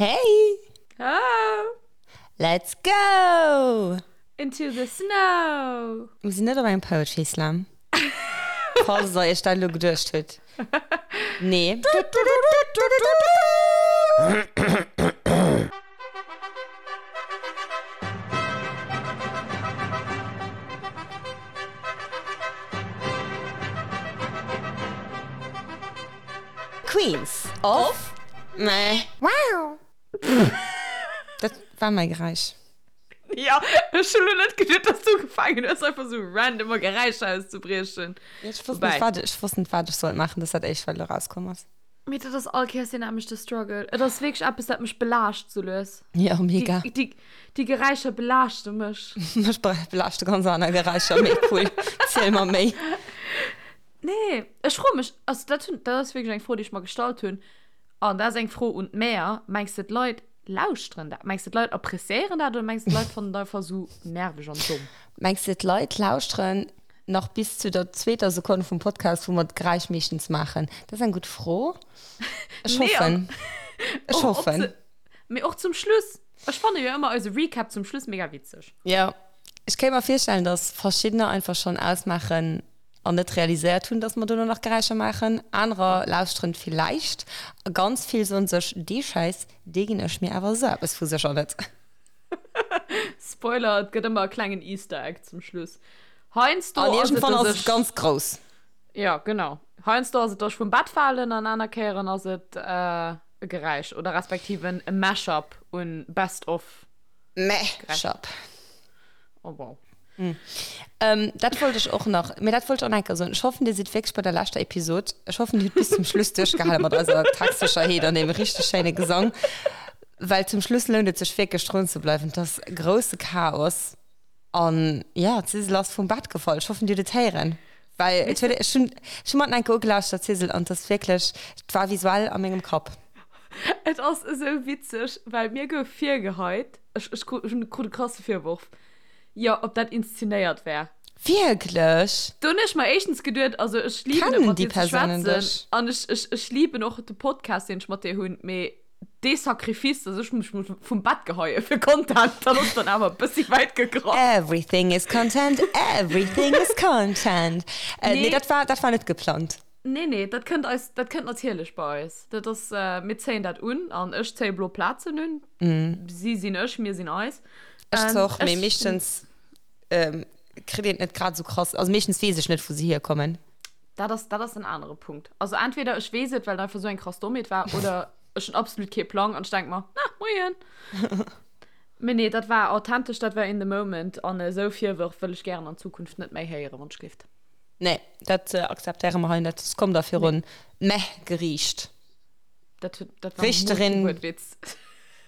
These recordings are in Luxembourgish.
Hey! Oh! Let's go! Into the snow! Mir sinn net op engem Poetry Slam. Falls der iech dat elo geduecht hutt. Nee. Queens of Meh. Wow! Dat war mäi Geräisch. Ja, ech hunn elo net geduet, dass du ugefaangen hues, einfach sou random Geräischer auszebriechen. Ech wosst net, wat ech wosst net, wat ech sollt maachen. Dat ass dat éischt, wat elo erauskomm ass. Mee dat ass all Kéiers deen nämmlechte Struggle. Et ass wierklech eppes, dat mech belaascht sou lues. Ja, mega. Déi, déi, déi Geräischer belaaschte mech. Mech belaaschte ganz aner Geräischer. Méi cool. Ziel mer méi. Nee, ech froe mech, also dat hunn, dat ass wierklech eng Fro, déi ech mer gestallt hunn, an dat ass eng Fro un d'Mäer, Mengs de d'Leit lauschteren dat? Mengs de d'Leit appreciéieren dat oder mengs de d'Leit fannen et einfach esou nerveg an domm? Mengs de d'Leit lauschteren nach bis zu der zweeter Sekonn vum Podcast, wou mer d'Geräisch meeschtens maachen? Dat ass eng gutt Fro. Ech hoffen. Ech hoffen. Mee och zum Schluss. Ech fanne jo ëmmer eise Recap zum Schluss mega witzeg. Jo, ech kéint mer virstellen, dass verschiddener einfach schonn ausmaachen an net realiséiert hunn, dass mer dono nach Geräischer maachen. Anerer lauschteren villäicht a ganz vill soen sech, dee Schäiss, dee ginn ech mir awer esou eppes vu sécher net. Spoiler, et gëtt ëmmer e klengen Easter Egg zum Schluss. Heiansdo An iergendwann ass et ganz grouss. Jo, genau. Heiansdo ass et, dass ech vum Bett falen an aner Kéieren ass et e Geräisch oder respektiv en Mash-up un Best of Mash-up. Oh wow. Dat wollt ech och nach, mee dat wollt ech och nach eng Kéier soen. Ech hoffen, Dir sidd wierklech bei der leschter Episod. Ech hoffen, Dir hutt bis zum Schluss duerchgehale mat eiser Textsécherheet an deem richteg schéine Gesang, well zum Schluss lount et sech wierklech drun ze bleiwen. Et ass grousse Chaos an jo, d'Sisel ass vum Bett gefall. Ech hoffen, Dir hutt et héieren, well et huet, ech hunn, ech hu mer et nach eng Kéier ugelauschtert, Sisel, an et ass wierklech, et war visuell a mengem Kapp. Et ass esou witzeg, well mir gouf virgeheit, ech, ech krut, ech krut e krasse Virworf, jo, ob dat inszenéiert wär. Wierklech? Do hunn ech mer éischtens geduet, also ech liben et Kennen mat déi dir ze Persounen schwätzen dech? an ech, ech, ech liben och de Podcast, deen ech mat dir hunn, mee dee Sacrifice, dass ech mech muss vum Bett geheie fir Content, dat ass dann awer e bëssi wäit gegraff. Everything is content, everything is content. Äh, nee, Nee. dat war, dat war net geplangt. Nee, nee, dat kënnt eis, dat kënnt natierlech bei eis. Dat ass, mir zéien dat un an ech zéie blo Plazen un. Si sinn ech, mir sinn eis. Ech och, mee meeschtens kritt een et net grad esou krass, also meeschtens weess ech net, wou se hierkommen. Dat ass, dat ass en anere Punkt. Also entweder ech weess et, well et einfach esou eng krass Dommheet war, oder ech hunn absolut kee Plang an ech denk mer, na, moien. Mee nee, dat war authentesch, dat war in the moment an esou Virwërf wëll ech gären an Zukunft net méi héieren, wann ech gelift. Nee, dat akzeptéiere mer hei net. S komm da virun d'Meh-Geriicht. Dat huet, dat war Richterin. Kee Wuertwitz.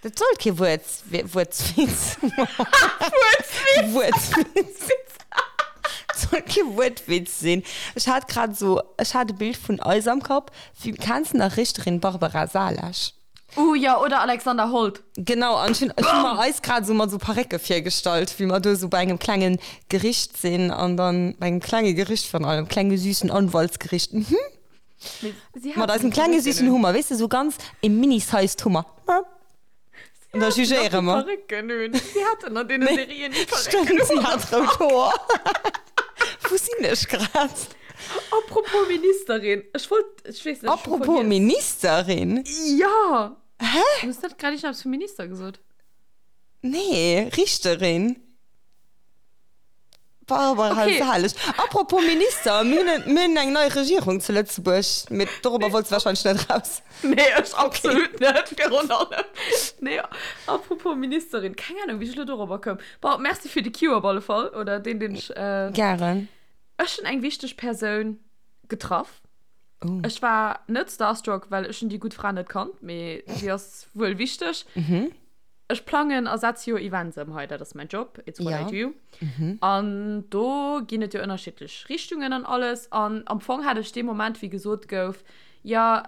Dat sollt kee Wuert, Wuertwitz. Wuertwitz. Wuertwitz. Dat sollt kee Wuertwitz sinn. Ech hat grad esou, ech hat e Bild vun eis am Kapp. Wéi, kenns de nach Richterin Barbara Salesch? Uh jo, oder Alexander Holt. Genau, an ech hunn, ech hunn mer eis grad esou mat esou Parécke virgestallt, wéi mer do esou bei engem klengen Gericht sinn an dann, bei engem klenge Gericht virun allem, klenge süßen Anwaltsgericht, mhm. Mee si Mat haten eisem déi klenge Parécken süßen un. Hummer, weess de, esou ganz e mini-sized Hummer. Si An da haten nach jugéiere déi mer. Parécken un. Si haten an deene Nee, Serien déi Parécken stëmmt, si un. hat rout Hoer. Wou sinn ech grad? Apropos Ministerin, ech wollt, ech weess net, ech hu Apropos vergiess. Ministerin? Jo! Hä? Du hues net grad iergendeppes vu Minister gesot? Nee, Richterin. Barbara Okay. Salesch. Apropos Minister, mir hunn, mir hunn eng nei Regierung zu Lëtzebuerg, mee dorobber wollts du wahrscheinlech net raus. Nee, ech absolut net, virun allem. Nee, apropos Ministerin, keng Ahnung, wéi ech elo dorobber koum. Bon, merci fir de Cue op alle Fall, oder deen, deen ech. Gären. Ech hunn eng wichteg Persoun getraff. Oh. Ech war net starstruck, well ech hunn déi gutt Fra net kannt, mee si ass wuel wichteg. Mhm. Ech plangen a setze jo Events ëm hei, dat ass mäin Job, it's what Ja. I do. Mhm. An do ginn et jo ënnerschiddlech Richtungen an alles. An am Fong hat ech dee Moment, wéi gesot gouf, jo,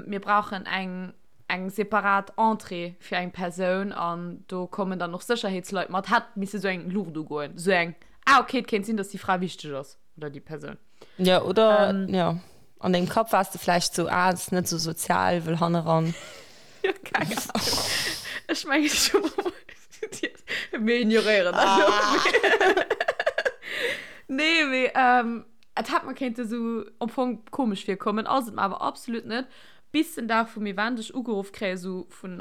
mir brauchen eng eng separat Entrée fir eng Persoun an do kommen dann och Sécherheetsleit mat, hätt misse sou eng Luucht ugoen, sou eng, ah okay, et kéint sinn, datt déi Fra wichteg ass oder déi Persoun. Jo, oder jo, an dengem Kapp waars de vläicht sou, ah, ass net sou sozial, wëll hanneran. Jo, keng Ahnung. Ech mengen, ech hu Mir ignoréieren dat elo. Nee, mee et hätt mer kéinte sou am Fong komesch virkommen, ass et mer awer absolut net. Bis den Dag vum Event ech ugeruff kréie sou vun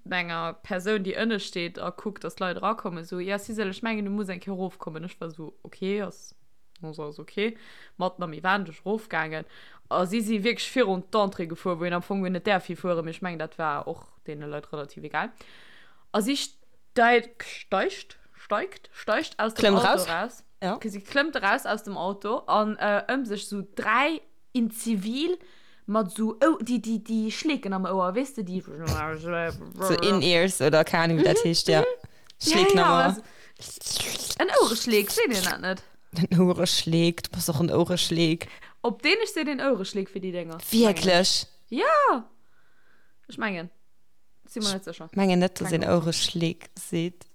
enger Persoun, déi ënne steet a kuckt, dass d'Leit erakommen, sou, Ja, Sisel, ech mengen, du muss eng Kéier erofkommen. Ech war sou, Okay, ass ass okay. Matten am Event, ech erofgaangen a si si wierklech virun d'Entrée gefuer, wou een am Fong guer net däerf hifueren, mee ech mengen, dat war och deene Leit relativ egal. A si steigt, steigt, steigt, steigt aus dem Klëmmt Auto raus. raus. Ja. Si klëmmt eraus aus dem Auto an äh, ëm sech sou 3 in Zivil mat sou Ou déi, déi, déi Schleeken am Ouer, weess de, déi. So In-Ears oder keine Ahnung, wéi dat heescht, ja. Schleeken ja, am ja, Ouer. also, en Ouereschleek, seet een dat net? En Ouereschleek, du bass och en Ouereschleek. Op Dänesch seet een Ouereschleek fir déi Dénger. Wierklech? Ja! Ech mengen. Si mer net sécher. Mengen net, dass Keng een Ouereschleek seet.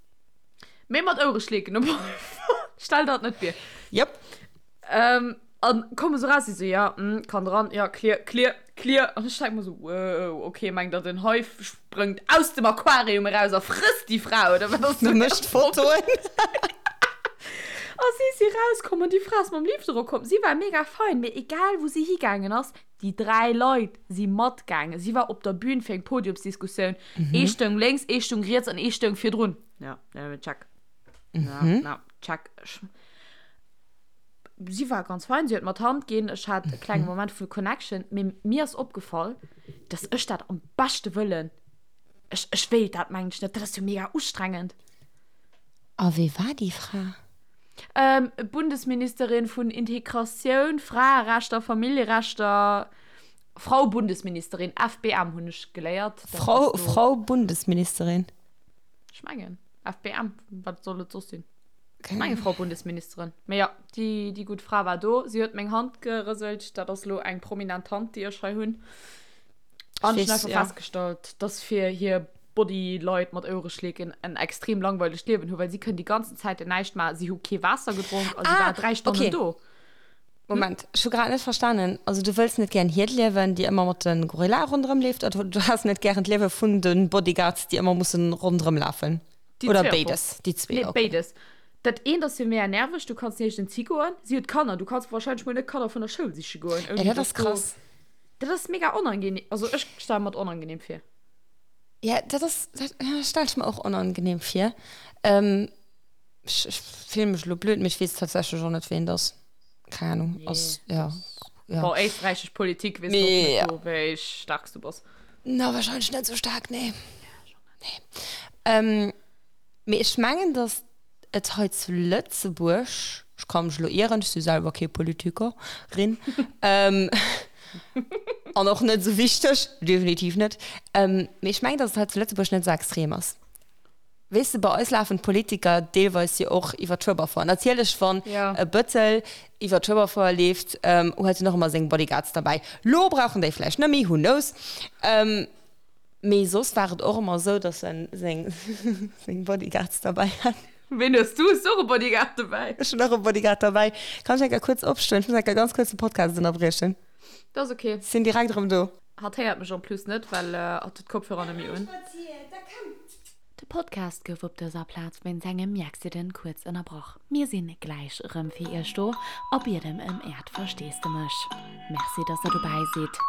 Mee mat Ouereschleeken op alle Fall. Stell der et net vir. Jop. Ähm, an komme sou raus, si sou, ja, mm, kann dran, ja, clear, clear, clear. An ech denk mer sou, wow, okay, mengt der den Hai sprëngt aus dem Aquarium eraus a frësst déi Fra, oder wat ass Du do mécht Fotoen. A si si rauskomm an déi Fra ass mam Lift erokomm. Si war mega fein, mee egal wou si higaangen ass, Déi 3 Leit si matgaangen. Si war op der Bühn fir eng Podiumsdiskussioun. Ee stoung lénks, ee stoung riets an ee stoung virdrun. Ja, ja, check. Ja, na, check. Ech, si war ganz fein, si huet mer d'Hand ginn. Ech hat e klenge Moment vu Connection. Mee mir ass opgefall, dass ech dat am beschte Wëllen, ech, ech wéilt dat mengen ech net. Dat ass jo mega ustrengend. A wee war déi Fra? Bundesministerin vun Integratioun, Fraerechter, Familljerechter, Frau Bundesministerin, FBM hunn ech geléiert. Frau, Frau Bundesministerin? Ech mengen FBM, wat soll et soss sinn? Ech menge Frau Bundesministerin. Mee jo, déi, déi gutt Fra war do. Si huet meng Hand gerëselt. Dat ass elo eng prominent Hand, déi ech hei hunn. An ech hunn einfach festgestallt, dass fir hir Body-Leit mat Ouereschleeken en extrem langweilegt Liewen hu, well si kënnen déi ganzen Zäiten näischt maachen. Si hu kee Waasser gedronk a si war 3 Stonnen okay. do. Moment, ech hu grad net verstanen. Also du wëlls net gären hiert Liewen, déi ëmmer mat de Gorillae ronderëm leeft, oder du has net gären d'Liewe vun de Bodyguards, déi ëmmer mussen ronderëm lafen? Déi Oder zwee am Fong. béides? Déi zwee, Nee, okay. béides. Dat eent ass jo mega nerveg, du kanns niergends higoen. Si huet Kanner, du kanns wahrscheinlech mol net Kanner vun der Schoul siche goen, Ja, ouni dat ass dass do. krass. Dat ass mega onangenehm. Also ech stelle mer et onangenehm vir. Ja, dat ass, dat stelle ech mer och onangenehm vir. Ähm, ech, ech fille mech elo blöd, mee ech weess tatsächlech och net, ween et ass. Keng Ahnung. Nee, Ass, ja, ja. Bon, éisträichesch Politik weess de och Mee, net ja. do, wéi staark s du bass. Na, wahrscheinlech net sou staark, nee. Nee. Ähm, mee ech mengen, datt et hei zu Lëtzebuerg, ech ka mech elo ieren, ech si selwer kee Politiker, rin, ähm, an och net esou wichteg, definitiv net, ähm, mee ech mengen, datt et hei zu Lëtzebuerg net esou extrem ass. Weess de, bei eis lafen d'Politiker deelweis jo och iwwer d'Schueberfouer. Natierlech, wann Ja. e Bëttel iwwer d'Schueberfouer leeft, ähm, huet en och ëmmer seng Bodyguards derbäi. Lo brauchen déi vläicht net méi, who knows. Ähm, Mee soss war et och ëmmer esou, dass en seng seng Bodyguards derbäi hat. Ween hues du? Hues du och e Bodyguard dobäi? Ech hunn och e Bodyguard derbäi. Kann ech eng Kéier kuerz opstoen? Ech muss eng Kéier ganz kuerz de Podcast ënnerbriechen. Dat ass ok. Sinn direkt erëm do. Hatt héiert mech en plus net, well hatt huet d'Kopfhörer net méi un. De Podcast gouf op dëser Plaz wéinst engem Miaccident kuerz ënnerbrach. Mir sinn gläich erëm fir iech do a bieden ëm äert Versteesdemech. Merci dass der dobäi sidd.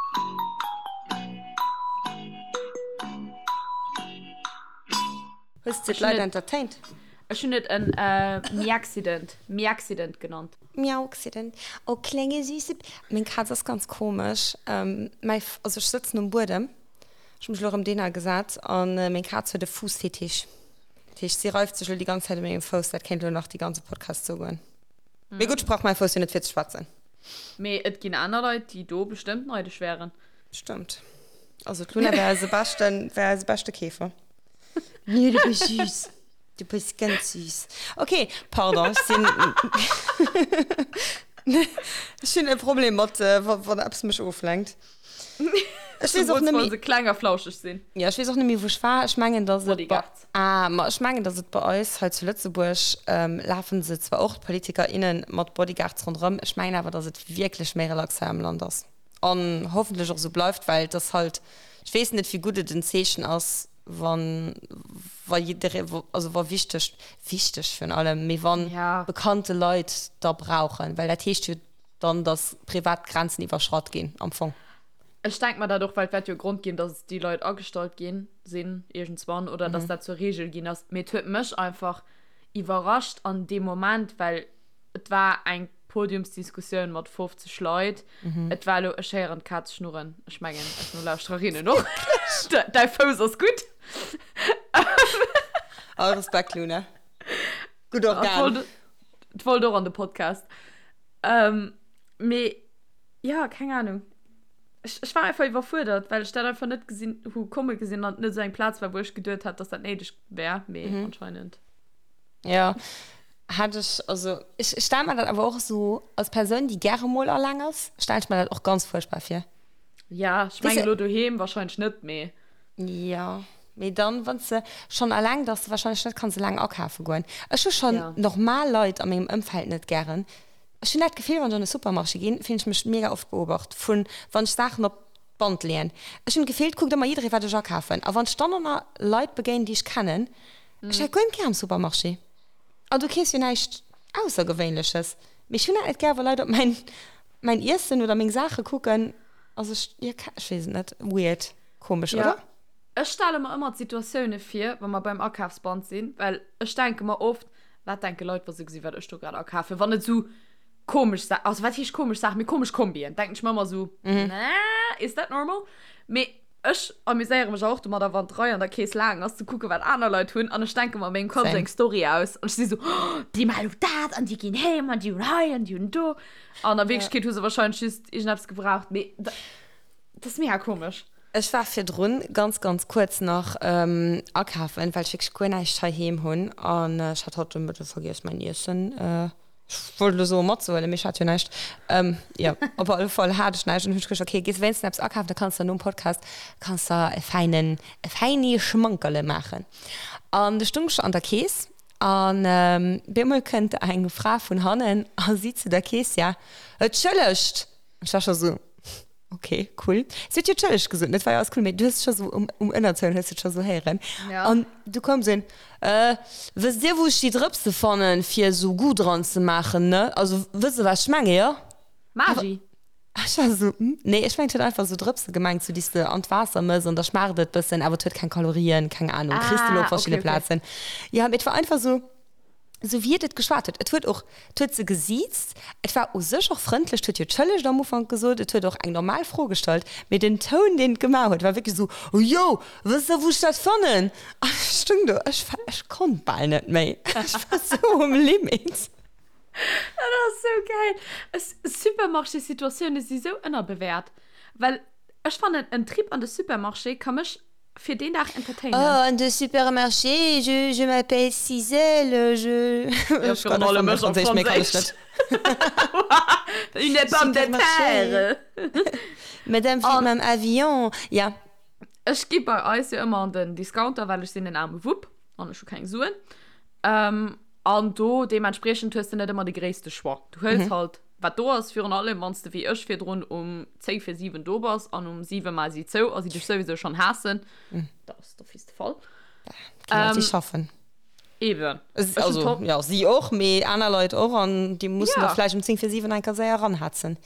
Hues de d'Leit entertained? Ech hunn et en Miaccident, Miaccident genannt. Miauxident, oh klenge süße. Meng Kaz ass ganz komesch. Mäi, also ech sëtzen um Buedem. Ech hu mech elo erëm dohinner gesat an meng Kaz huet e Fuussfetisch. Dat heescht, si reift sech elo déi ganz Zäit u mengem Fouss. Dat kéint elo nach déi ganze Podcast esou goen. Mee gutt, ech brauch mäi Fouss jo net fir ze schwätzen. Mee et ginn aner Leit, déi do bestëmmt neidesch wären. Stëmmt. Also d'Luna wär eise beschten, wär eise beschte Keefer. Nee, du bist süß. Du bist ganz süß. Okay, pardon, ech sinn, ech hunn e Problem mat, wann eppes mech oflenkt. Ech weess och net méi. Zemools wa se kleng a flauscheg sinn. Jo, ech weess och net méi, wou ech war. Ech mengen, dass et bei, Bodyguards. ah, ma ech mengen, dass et bei eis hei zu Lëtzebuerg, lafen se zwar och, d'Politiker, innen, mat Bodyguards ronderëm. Ech mengen awer, dass et wierklech méi relax hei am Land ass an hoffentlech och esou bleift, well et ass halt, ech weess net, wéi gutt et en Zeechen ass. Wann, wa jidderee, also wa wichteg, wichteg virun allem, mee wann Ja. bekannte Leit da brauchen, well dat heescht jo dann, dass privat Grenzen iwwerschratt ginn am Fong. Ech denk mer dat och, well et wäert jo e Grond ginn, dass déi Leit agestallt ginn sinn iergendswann oder dass dat zur Regel ginn ass. Mee et huet mech einfach iwwerrascht an deem Moment, well et war eng Podiumsdiskussioun mat 50 Leit. Et war elo, ech héieren d'Kaz schnurren, ech mengen eis Nolauschtererinnen och. Däi Fouss ass gutt. All Respekt, Luna. Gutt Organ. Et wollt och an de Podcast. Mee jo, keng Anung. Ech, ech war einfach iwwerfuerdert, well ech dat einfach net gesinn hu komme gesinn an et net esou eng Plaz war, wou ech geduet hätt, dass dat néideg wär, mee anscheinend. Jo, Hat ech, also ech stelle mer dat awer och esou als Persoun, déi gäre mol alleng ass, stelle ech mer dat och ganz fuerchtbar vir. Ja, ech mengen elo doheem wahrscheinlech net, mee. Jo, mee dann, wann s de schonn alleng, dass de wahrscheinlech net kanns eleng akafe goen. Ech hu schonn normal Leit a mengem Ëmfeld net gären. Ech hunn dat Gefill, wann ech an e Supermarché ginn, fillen ech mech mega oft beobacht vun, wann ech Saachen op d'Band leeën. Ech hunn d'Gefill, et kuckt ëmmer jidderee wat ech akafen. A wann ech dann ënner Leit begéinen, déi ech kennen, ech hätt guer net gär am Supermarché. An du keefs jo näischt Aussergewéinleches. Mee ech hunn dat net gär, wa Leit op mäin, mäin Iessen oder meng Saache kucken. Also ech, jo, ech weess et net. Weird. Komesch, Ja. oder? Ech stelle mer ëmmer d'Situatioune vir, wa mer beim Akafsband sinn, well ech denke mer oft, Wat denke Leit, wa se gesi wat ech do grad akafen? Wann et esou komesch Sa-, also wat heescht komesch Saachen, mee komesch Kombien, denken ech mer ëmmer esou, Nä, is that normal? Mee Ech amuséiere mech och domadder, wann d'Rei an der Kees laang ass, ze kucken, wat aner Leit hunn. An ech denke mer a mengem Kapp esou eng Story aus. An ech si sou, oh, déi maachen elo dat an déi ginn heem an déi hunn hei an déi hunn do. An a Wierklechkeet hu se warscheinlech just iergendeppes gebraucht. Mee dat ass mega komesch. Ech war virdrun ganz, ganz kuerz nach akafen, well ech wierklech guer näischt heiheem hunn. An ech hat haut de Mëtte vergiess, mäin Iessen Ech wollt elo soen matzehuelen, mee ech hat jo näischt. Jo, op alle Fall hat ech näischt an hunn ech geduecht, okay, gees wéinstens eppes akafen, da kanns de nom Podcast kanns de e fäinen, e fäini Schmankerle maachen. An du stung ech an der Kees an bemol kënnt eng Fra vun hannen a seet zu der Keessière, Entschëllegt! An ech war scho sou, Ok, cool. Si huet jo Entschëllegt gesot, net war jo alles cool, mee du hues scho sou um, um Ënnertoun hues du et scho sou héieren. Ja. An du koum sou een, Äh, wësst Dir, wou ech déi Drëpse fannen, fir sou Goût dran ze maachen, ne? Also, wësst Der, wat ech menge, jo? Maggi. Ech war sou, hm, nee, ech mengen, et huet einfach sou Drëpse gemengt, sou déi s de an d'Waasser mëss an da schmaacht et bëssen, awer et huet keng Kalorien, keng Ahnung, kriss de elo op Ah, okay, verschidde okay. Plazen. Jo, mee et war einfach sou. Esou wéi et et geschwat huet. Et huet och, et huet se gesiizt, et war u sech och frëndlech, et huet jo Tschëllegt am Ufank gesot, et huet och eng normal Fro gestallt, mee den Toun, deen et gemaach huet, war wierklech esou, Oh jo, wësst Der, wou ech dat fannen? An ech stung do, ech war, ech konnt bal net méi, ech war esou um Limit. Dat ass sou gäil. Ech, Supermarché-Situatioune si sou ënnerbewäert, well ech fannen, en Trip an de Supermarché ka mech fir deen Dag entertainen. Oh, an de Supermarché, je, je m'appelle Cisèle, je. Ja, Ech virun kann allem einfach ech méi op Franséisch, méi kann ech Franséisch. net. Une pomme de Supermarché. terre. Madame fliegt An mam Avion. Ja. ech gi bei eis jo ëmmer an den Discounter, well ech sinn en aarme Wupp an ech hu keng Suen. Ähm, an do deementspriechend hues de net ëmmer de gréisste Choix. Du huels halt Wat do ass, virun allem wann s de wéi ech virdrun um 10 vir 7 do bass an um 7 maache si zou a si dech souwisou schonn haassen, dat ass d'office de Fall. Ginn Leit, déi schaffen. Eben. Ech hunn Also, jo, si och, mee aner Leit och an déi mussen da Ja. vläicht um 10 vir 7 eng Kéier séier eranhetzen.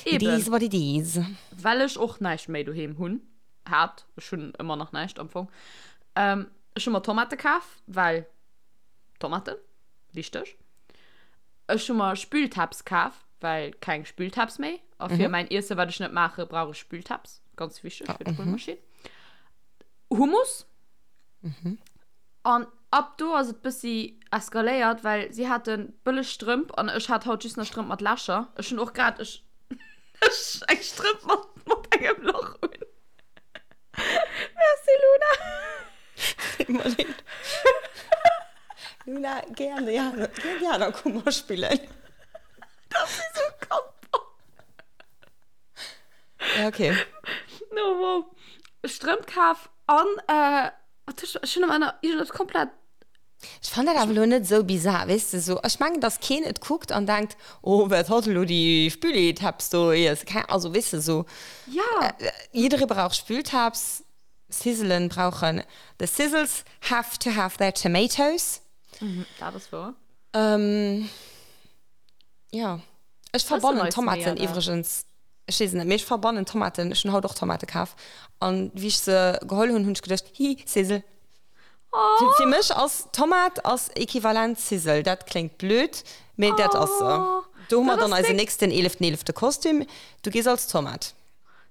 It Eben. is what it is. Well ech och näischt méi doheem hunn, hat, ech hunn ëmmer nach näischt am Fong, ech hu mer Tomate kaf, well Tomaten, wichteg. Ech hu mer Spültabs kaf, well keng Spültabs méi. A fir mäin Iesse wat ech net maache brauch ech Spültabs. Ganz wichteg fir d'Spülmaschinn. Hummus. An ab do ass et bëssi eskaléiert, well si hate bëlleg Strëmp an ech hat haut just nach Strëmp mat Lächer. Ech hunn och grad ech eng Strëmp mat mat engem Lach un. Merci Luna. Deet mer leed. Luna, géi an déi aner, géi an déi aner Kummer spillen. Dat ass esou kappert. Ja, okay. No, wow. Strëmp kaf an, äh, wat hu ech, ech hunn am Enner iergendwas komplett. Ech fannen dat awer elo net esou bizar, weess de, sou, ech mengen, dass keen et kuckt an denkt, oh, wat hat elo déi Spülitabs do iess, keng, also weess de, sou. Ja. Jidderee brauch Spültabs. Sizzelen brauchen, the sizzles have to have their tomatoes. Dat ass wouer. Jo, ech verbannen Tomaten iwwregens, ech weess et net, mee ech verbannen Tomaten, ech hunn haut och Tomate kaf an wéi ech se geholl hunn, hunn ech geduecht, hi, Sizzle. Oh. Fir mech ass Tomat ass equivalent Sizzle, dat kléngt blöd, mee dat ass se. Do hu mer dann eisen nächsten eeleften eelefte Kostüm, du gees als Tomat.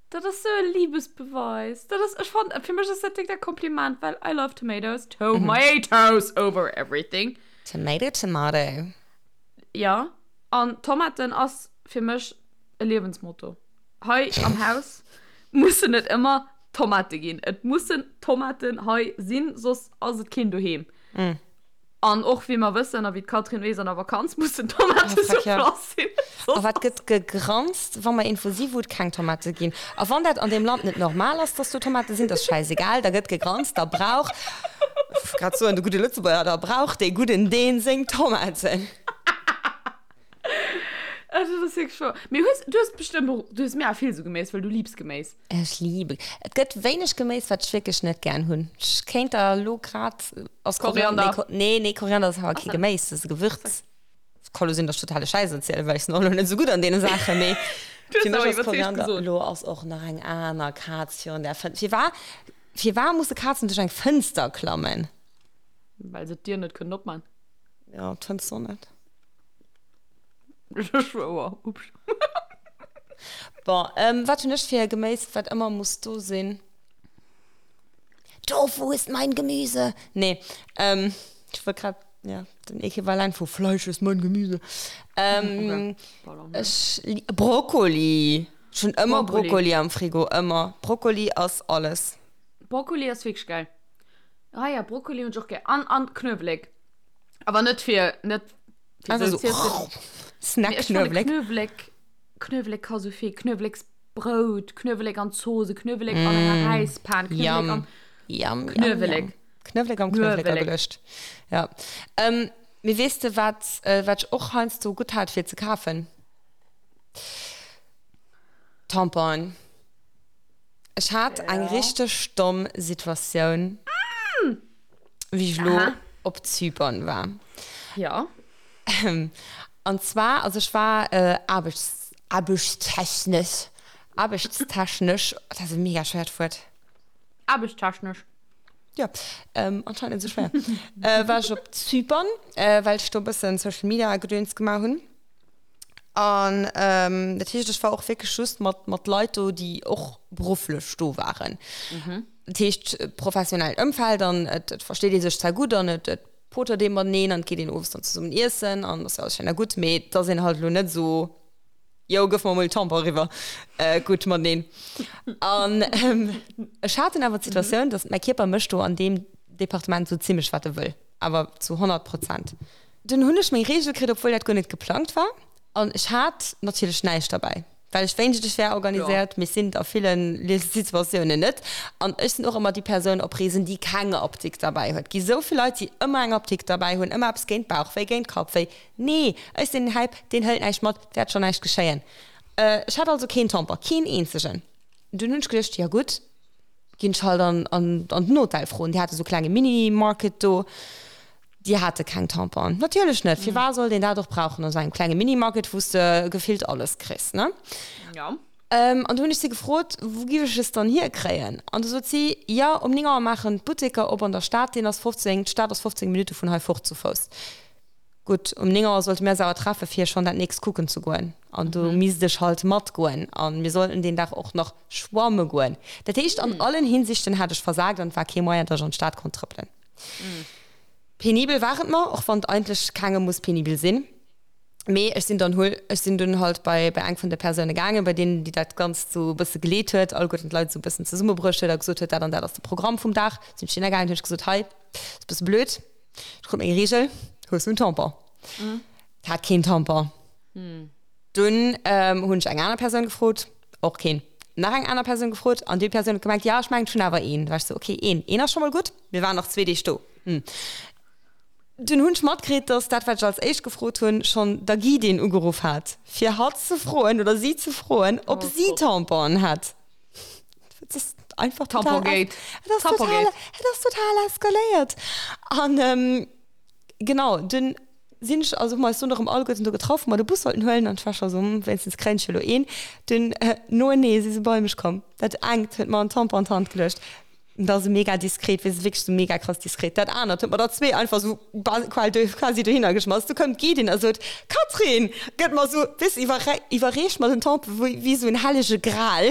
Dat ass sou e Liebesbeweis. Dat ass, ech fand, fir mech ass dat direkt e Kompliment, well I love tomatoes, tomatoes over everything. Tomato, tomato. Ja, an Tomaten ass fir mech e Liewensmotto. Hei am Haus mussen et ëmmer Tomate ginn. Et mussen Tomaten hei sinn, soss ass et keen doheem. Mm. An och wéi mer wëssen a wéi d'Catherine weess, an der Vakanz mussen Tomate oh, sur place sinn. A wat gëtt gegranzt, wa mer iergendwou si wou et keng Tomate ginn? A wann dat an deem Land net normal ass, dass do Tomate sinn, dat ass schäisegal, da gëtt gegranzt, da brauch, grad soen, de gudde Lëtzebuerger, da brauch dee gudden Deen seng Tomaten. Also, das ist wirklich wahr. Mee hues, du hues bestëmmt och, du hues mega vill sou Geméis, well du liebs Geméis. Ech liebe. Et gëtt wéineg Geméis, wat ech wierklech net gären hunn. Ech kéint der elo grad. Ass Koriander. Nee, nee, Koriander ass awer kee Geméis, dat ass e Gewürz. Ka lo sinn, datt ech totale Schäiss erzielen, well ech sinn och elo net esou gutt an deene Saachen, mee fir mech ass Koriander. Elo ass och nach eng aner Kaz virun der Fënster. Firwar, firwar musse Kazen duerch eng Fënster klammen? Well se d'Dier net kënnen opman. Jo, d'Fënster och net. Ech schwouer. Ups. Bon, ähm, wat hunn ech fir e Geméis, wat ëmmer muss do sinn? Tofu ist mein Gemüse! Nee, ähm, ech wollt grad, ja, den Equivalent vu Fleisch ist mein Gemüse. Ähm, okay. Ech, Brokkoli! Ech hunn ëmmer Brokkoli. Brokkoli am Frigo, ëmmer. Brokkoli ass alles. Brokkoli ass wierklech geil. Ah ja, Brokkoli hunn ech och gär. An, an Knuewelek. Awer net fir, net Einfach so, oh, Snack Knuewelek. Knuewelek, Knuewelek ka sou vill. Knueweleksbrout, Knuewelek an Zose, Knuewelek an enger mm. Räispan, Knuewelek an Yum, Knuewelek. Knuewelek am Knuewelek ageluecht. Ja. Ähm, mee weess de, wat, äh, wat ech och heiansdo gutt hat fir ze kafen? Tamponen. Ech hat eng ja. richteg domm Situatioun. Mm. Wéi ech elo op Zypern war. Ja. An zwar, also ech war äh, aarbechts, aarbechtstechnesch, aarbechtstechnesch, dat ass e mega schwéiert Wuert. Aarbechtstechnesch. Ja, ähm, anscheinend net esou schwéier. äh, war ech op Zypern, äh, well ech do e bëssen Social Media Gedöns gemaach hunn. An ähm, dat heescht, ech war och wierklech just mat, mat Leit do, déi och berufflech do waren. Mhm. Dat heescht, professionellt Ëmfeld an et, et versteet ee sech zwar gutt an et, et potert ee mateneen an et geet een owes dann zesummen iessen an ass jo alles schéin a gutt, mee et ass een halt elo net esou, Jo, gëff mer emol Tampon eriwwer, gutt mateneen. An ech hat dunn awer d'Situatioun, datt mäi Kierper mécht do an deem Departement esou zimmlech wat e wëll, awer zu 100 Prozent. Dunn hunn ech meng Reegel kritt, obwuel dat guer net geplangt war an ech hat natierlech näischt derbäi. Well ech wéinscht ech wär organiséiert, mee sinn et a ville Situatiounen net. An ech sinn och ëmmer déi Persoun op Reesen, déi keng Apdikt derbäi huet. Et gi sou vill Leit, déi ëmmer eng Apdikt derbäi hunn, ëmmer eppes géint Bauchwéi, géint Kappwéi. Nee, ech sinn den Häip, deen hëlt näischt mat, et wäert schonn näischt geschéien. Ech hat also keen Tampon, keen eenzegen. Dunn hunn ech geduecht, jo gutt, ginn ech halt an den Hotel froen. Déi hate sou klenge Mini-Market do. Déi hate keng Tamponen. Natierlech net. Firwat sollt een dat och brauchen an esou engem klenge Minimarket, wou s de gefillt alles kriss, ne? Jo. An du hunn ech si gefrot, Wou giff ech es dann hierkréien? An du sot si, Jo, um 9 Auer maachen d'Butteker op an der Stad, deen ass 15, d'Stad ass 15 Minutte vun hei fort zu Fouss. Gutt, um 9 Auer sollte mir eis awer treffe fir schonn dat nächst kucken ze goen. An do misst ech halt matgoen. A mir sollten deen Dag och nach schwamme goen. Dat heescht, an allen Hinsichten hat ech versagt an et war kee Moyen, datt ech an d'Stad konnt trëppelen. Penibel war et mer, och wann et eigentlech kengem muss penibel sinn. Mee ech sinn dann hol, ech sinn dunn halt bei, bei eng vun de Persoune gaangen, bei deenen, déi dat Ganzt sou e bësse geleet huet, alleguerten d'Leit sou e bëssen zesummebruecht huet a gesot huet, dat an dat ass de Programm vum Dag. Sinn ech hinner gaangen, hunn ech gesot, hei, ass e bësse blöd, ech krut meng Reegel, hues du en Tampon? Hat keen Tampon. Dunn hunn ech eng aner Persoun gefrot, och keen. Nach eng aner Persoun gefrot an déi Persoun huet gemengt, jo, ech mengen, ech hunn awer een. Da war ech sou, okay, een, een ass scho mol gutt. Mir waren nach zwee Deeg do. Hm. Dunn hunn ech matkritt, dass dat, wat ech als éischt gefrot hunn, schonn der Guidin ugeruff hat, fir hatt ze froen oder si ze froen, ob si Tamponen hätt. einfach total, et ass total, et ass total eskaléiert. An genau, dunn sinn ech, also hu mer eis dunn erëm alleguerten do getraff, wou mer de Bus sollten huelen an ech war scho sou, hm, wéinstens kréien ech jo elo een. Dunn noenee si se bei mech komm. Dat engt huet mer en Tampon an d'Hand geluecht. Dat ass mega diskret, weess wierklech sou mega krass diskret. Dat anert huet mer der zwee einfach sou quasi dohinner geschmass. Du koum d'Guidin a sot, Catherine! Gëtt mer sou, weess, iwwerreecht mer den Tampon wéi wéi sou en hellege Gral.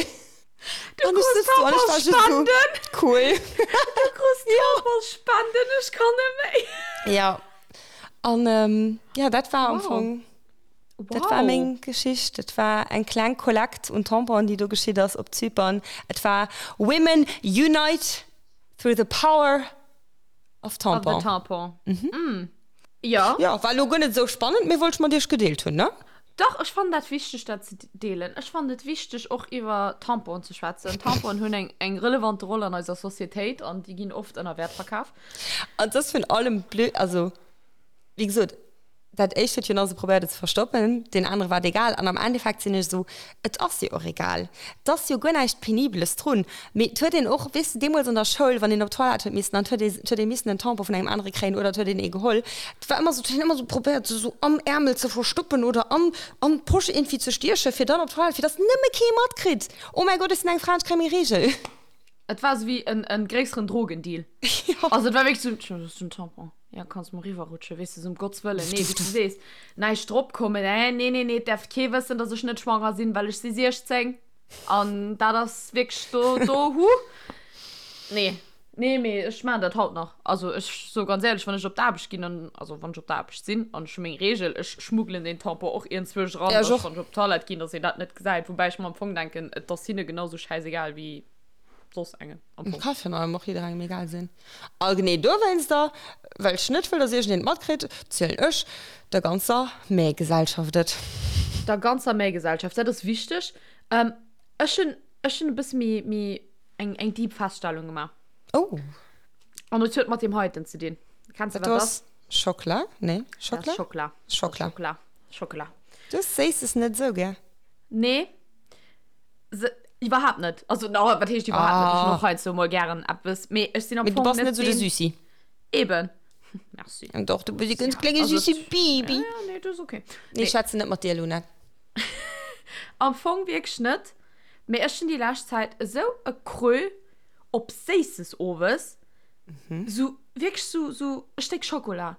Du krus Tamponsspenden! Cool! Du krus Tamponsspenden, ech kann net méi! Ja, an ja, dat war am Fong. Dat war meng Geschicht. Et war eng kleng Kollekt un Tamponen, déi do geschitt ass op Zypern. Et war Women unite through the power of tampon. Of the tampon. Mm. Jo. Jo, war elo guer net esou spannend, mee wollt ech mat iech gedeelt hunn, ne? Dach, ech fannen dat wichteg, dat ze deelen. Ech fannen et wichteg, och iwwer Tamponen ze schwätzen. Tamponen hunn eng, eng relevante Roll an eiser Societéit an déi ginn oft ënner Wäert verkaf. An et ass virun allem blöd, also wéi gesot, Dat éischt huet jo nach esou probéiert et ze verstoppen, deen anere war et egal. An am Endeffekt sinn ech esou, et ass jo och egal. Et ass jo guer näischt Penibeles drun. Mee et huet een och, weess de, deemools an der Schoul, wann een op d'Toilette huet missen, an et huet ee, et huet ee missen en Tampon vun engem anere kréien oder et huet een ee geholl, et war ëmmer esou, et huet een ëmmer esou probéiert, se esou am Äermel ze verstoppen oder an, an d'Posch iergendwéi ze stiechen, fir dann op d'Toilette, fir dass nëmme kee matkritt, Oh mäi Gott, ech sinn eng Fra an ech kréie meng Reegel. Et war esou wéi en, en gréisseren Drogendeal. Jo. Also et war wierklech esou, tjo, dat ass en Tampon. Ja, kanns mol riwwerrutschen, weess de, sou um Gotts Wëllen. Nee, wéi s du sees, näischt drop kommen, eh, nee, nee, nee, et däerf kee wëssen, dass ech net schwanger sinn, well ech si 16. An dat ass wierklech do, do, huh. Nee, nee, mee ech maachen dat haut nach. Also ech soe ganz éierlech, wann ech op d'Aarbecht ginn an, also wann ech op der Aarbecht sinn an ech hu meng Reegel, ech schmuggelen deen Tampon och iergendzwousch eran, Ja, ech dass och. wann ech op d'Toilette ginn, dass een dat net gesäit. Woubäi ech mer am Fong denken, et ass hinne genau sou schäisegal wéi soss engem am Fong. Ka virun allem och jidderengem egal sinn. A genee dowéinster, well ech net wëll, dass iergendeen et matkritt, zielen ech der ganzer Méi-Gesellschaft et. Der ganzer Méi-Gesellschaft, dat ass wichteg. Ech hunn, ech hunn e bësse méi, méi eng, eng deep Feststellung gemaach. Oh. An et huet mat deem heiten ze dinn. Kenns de, Dat wat do dat ass Schockela? Nee, Dat ass Schockela? Schockela. Schockela. Schockela. Schockela. Du hues Séisses net esou gär. Nee. Se, iwwerhaapt net. Also, no, wat heescht iwwerhaapt net? Ech hunn och heiansdo mol gären eppes, mee ech sinn am Mee du Fong bass net net esou de deen. Süssi. Eben. Merci. Doch, du bass e ganz Ja, klenge also süsse et- Baby. Ja, ja, nee, dat ass okay. Nee, ech schwätzen net mat dir, Luna. Am Fong wierklech net, mee ech hunn déi lescht Zäit esou e Creux op Séisses owes. Sou wierklech sou, sou e Stéck Schokola.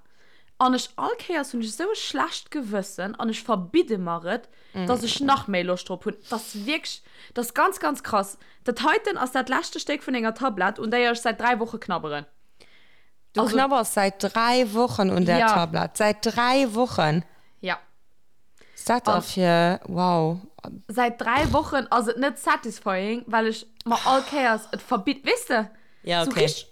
An ech all Kéiers hunn ech esou e schlecht Gewëssen an ech verbidde mer et, dass ech nach méi Loscht drop hunn. Dat ass wierklech, dat ass ganz, ganz krass. Dat heiten ass dat leschte Stéck vun enger Tablett, un déier ech säit 3 Woche knabberen. Du Also, knabbers säit 3 Wochen un där ja. Tablett. Säit 3 Wochen! Ja. Was dat da An fir, wow. säit 3 Wochen ass et net satisfying, well ech mer all Kéiers et verbitt, weess de? Ja, Sou okay. richteg,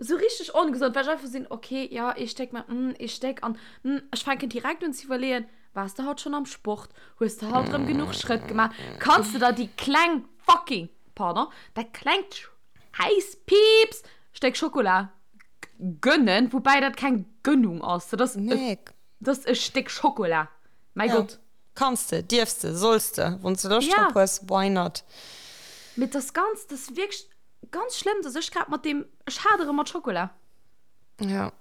sou richteg ongesond, well ech einfach sinn, okay, ja, ee Stéck, mä mm, ee Stéck an mm, ech fänken direkt un ze iwwerleeën, Waars de haut schonn am Sport? Hues de haut rëm genuch Schrëtt gemaach? Kanns de der déi kleng fucking, pardon, dat klengt Schäiss-Piips Stéck Schokola gönnen? Woubäi dat keng Gönnung ass, dat ass e, Nee. dat ass e Stéck Schokola, mäi Ja. Gott. Kanns de, dierfs de, solls de, wann s de Loscht Ja. drop hues, why not? Mee et ass ganz, dat ass wierklech ganz schlëmm, dass ech grad mat deem, ech hadere mat Schokola. Ja.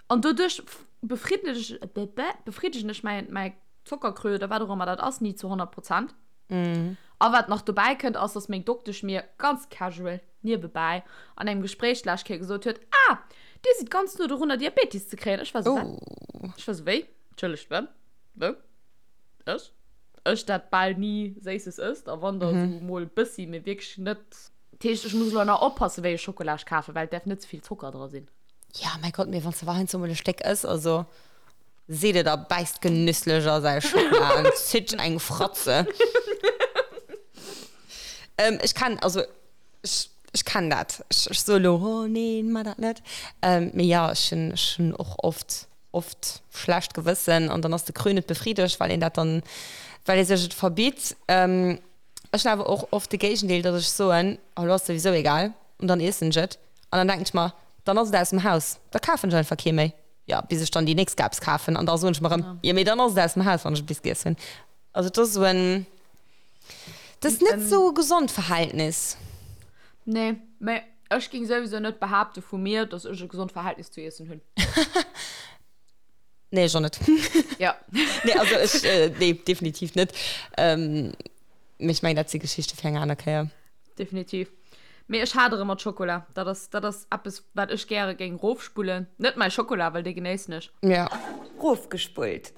An doduerch befriddegen ech mäi, mäi Zockerkrö oder wat och ëmmer dat ass, ni zu 100 Prozent. A wat nach dobäi kënnt, ass, dass meng Doktesch mir ganz casual niewebäi an engem Gespréich d'lescht Kéier gesot huet, Ah, Dir sidd ganz no dorunner, Diabetes ze kréien. Ech war esou, Wat? Ech war esou, Wéi? Entschëllegt, wat? Wou? Ech? Ech, dat bal ni Séisses ësst, a wann da esou mol e bëssi, mee wierklech net. Dat heescht, ech muss elo nach oppassen, wéi ech Schokola ech kafen, well et däerf net ze vill Zocker dra sinn. Ja, mäi Gott, mee wann s de awer heiansdo mol e Stéck ëss, also seet et a bäisst genüsslech a säi Schockela an zitt eng Fratze. Ähm, ech kenn, also ech, ech kenn dat. Ech, ech soe lo, oh neen, mar dat net. Ähm, mee jo, ech hunn, ech hunn och oft, oft schlecht Gewëssen an dann ass de Creux net befriedegt, well een dat dann, well ee sech et verbitt. Ähm, ech hunn awer och oft de Géigendeel, datt ech soen, oh lo ass souwisou egal an dann iessen ech et. An dann denken ech mer, dann ass et aus dem Haus, da kafen ech einfach kee méi. Jo, bis ech dann déi nächst Gabs kafen an da soen ech mer erëm, jo mee dann ass et aus dem Haus, wann ech et bis giess hunn. Also et ass esou en, et ass net esou e gesond Verhältnis. Nee. Mee ech géing souwisou net behaapte vu mir, dass ech e gesond Verhältnis zu Iessen hunn. Nee, ech och net. Ja. Nee, also ech, äh, nee, definitiv net. Ähm, mee ech mengen, dat si Geschichte fir eng aner Kéier. Definitiv. Mee ech hadere mat Schokola. Dat ass, dat ass eppes, wat ech gäre géing rofspullen. Net mäi Schokola, well dee genéissen ech. Ja. Rofgespullt.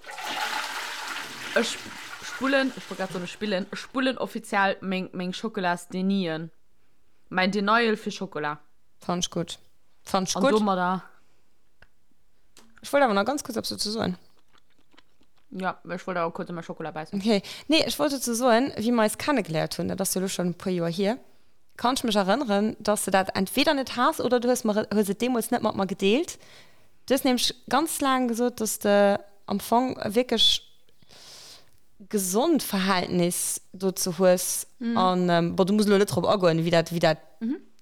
Ech spullen, ech wollt grad soen, ech spillen, ech spullen offiziell meng, meng Schokolas-Denien. Mäin Denial fir Schokola. Fannt ech gutt. Fannt ech gutt. An domadder. Ech wollt awer nach ganz kuerz eppes dozou soen. Ja, ech wollt awer kuerz an mäi Schokola bäissen. Okay. Nee, ech wollt dozou soen, wéi mer eis kennegeléiert hunn, dat ass jo elo schonn e puer Joer hier, kann ech mech erënneren, dass de dat entweder net has oder du hues mer, hues et deemools net mat mer gedeelt. Du hues nämlech ganz laang gesot, dass de am Fong e wierklech gesond Verhältnis dozou hues. An, bon, du muss elo net drop agoen, wéi dat, wéi dat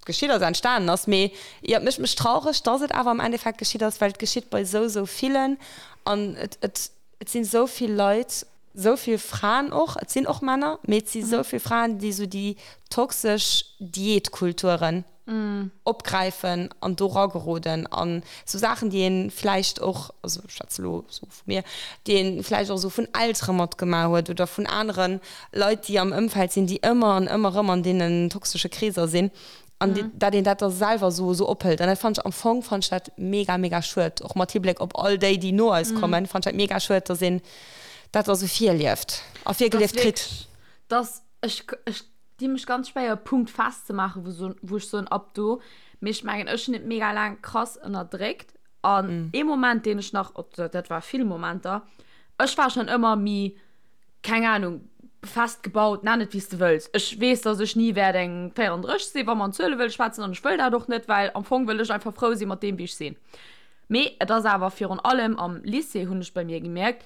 geschitt ass, entstanen ass, mee jo, et mécht mech traureg, dass et awer am Endeffekt geschitt ass, well et geschitt bei esou, esou villen an et, et, et sinn esou vill Leit, esou vill Fraen och, et sinn och Männer, mee et si esou vill Fraen, déi esou déi toxesch Diätkulturen opgräifen an do rageroden an esou Saachen, déi ee vläicht och, also ech schwätze elo esou vu mir, déi ee vläicht och esou vun Eltere matgemaach huet oder vun anere Leit, déi am Ëmfeld sinn, déi ëmmer an ëmmer erëm an deenen toxesche Kreeser sinn an dat een dat da selwer esou esou ophëlt. An dat fannen ech am Fong fannen ech dat mega, mega schued, och mat Hibléck op all déi, déi no eis kommen, fannen ech dat mega schued, dass een dat da sou virlieft a virgelieft kritt. Dass ech, ech di mech ganz schwéier e Punkt festzemaachen, wou so, wou ech soen, ab do. Mee ech mengen, ech hunn et mega laang krass ënnerdréckt. An ee Moment, deen ech nach, op, dat war vill Momenter, ech war schonn ëmmer méi, keng Ahnung, fest gebaut, nenn et wéi s de wëlls. Ech weess, dass ech ni wäert eng 34 sinn, wa mer an Zuele wëlle schwätzen, an ech wëll dat och net, well am Fong wëll ech einfach frou si mat deem, wéi ech sinn. Mee et ass awer virun allem am Lycée, hunn ech bei mir gemierkt,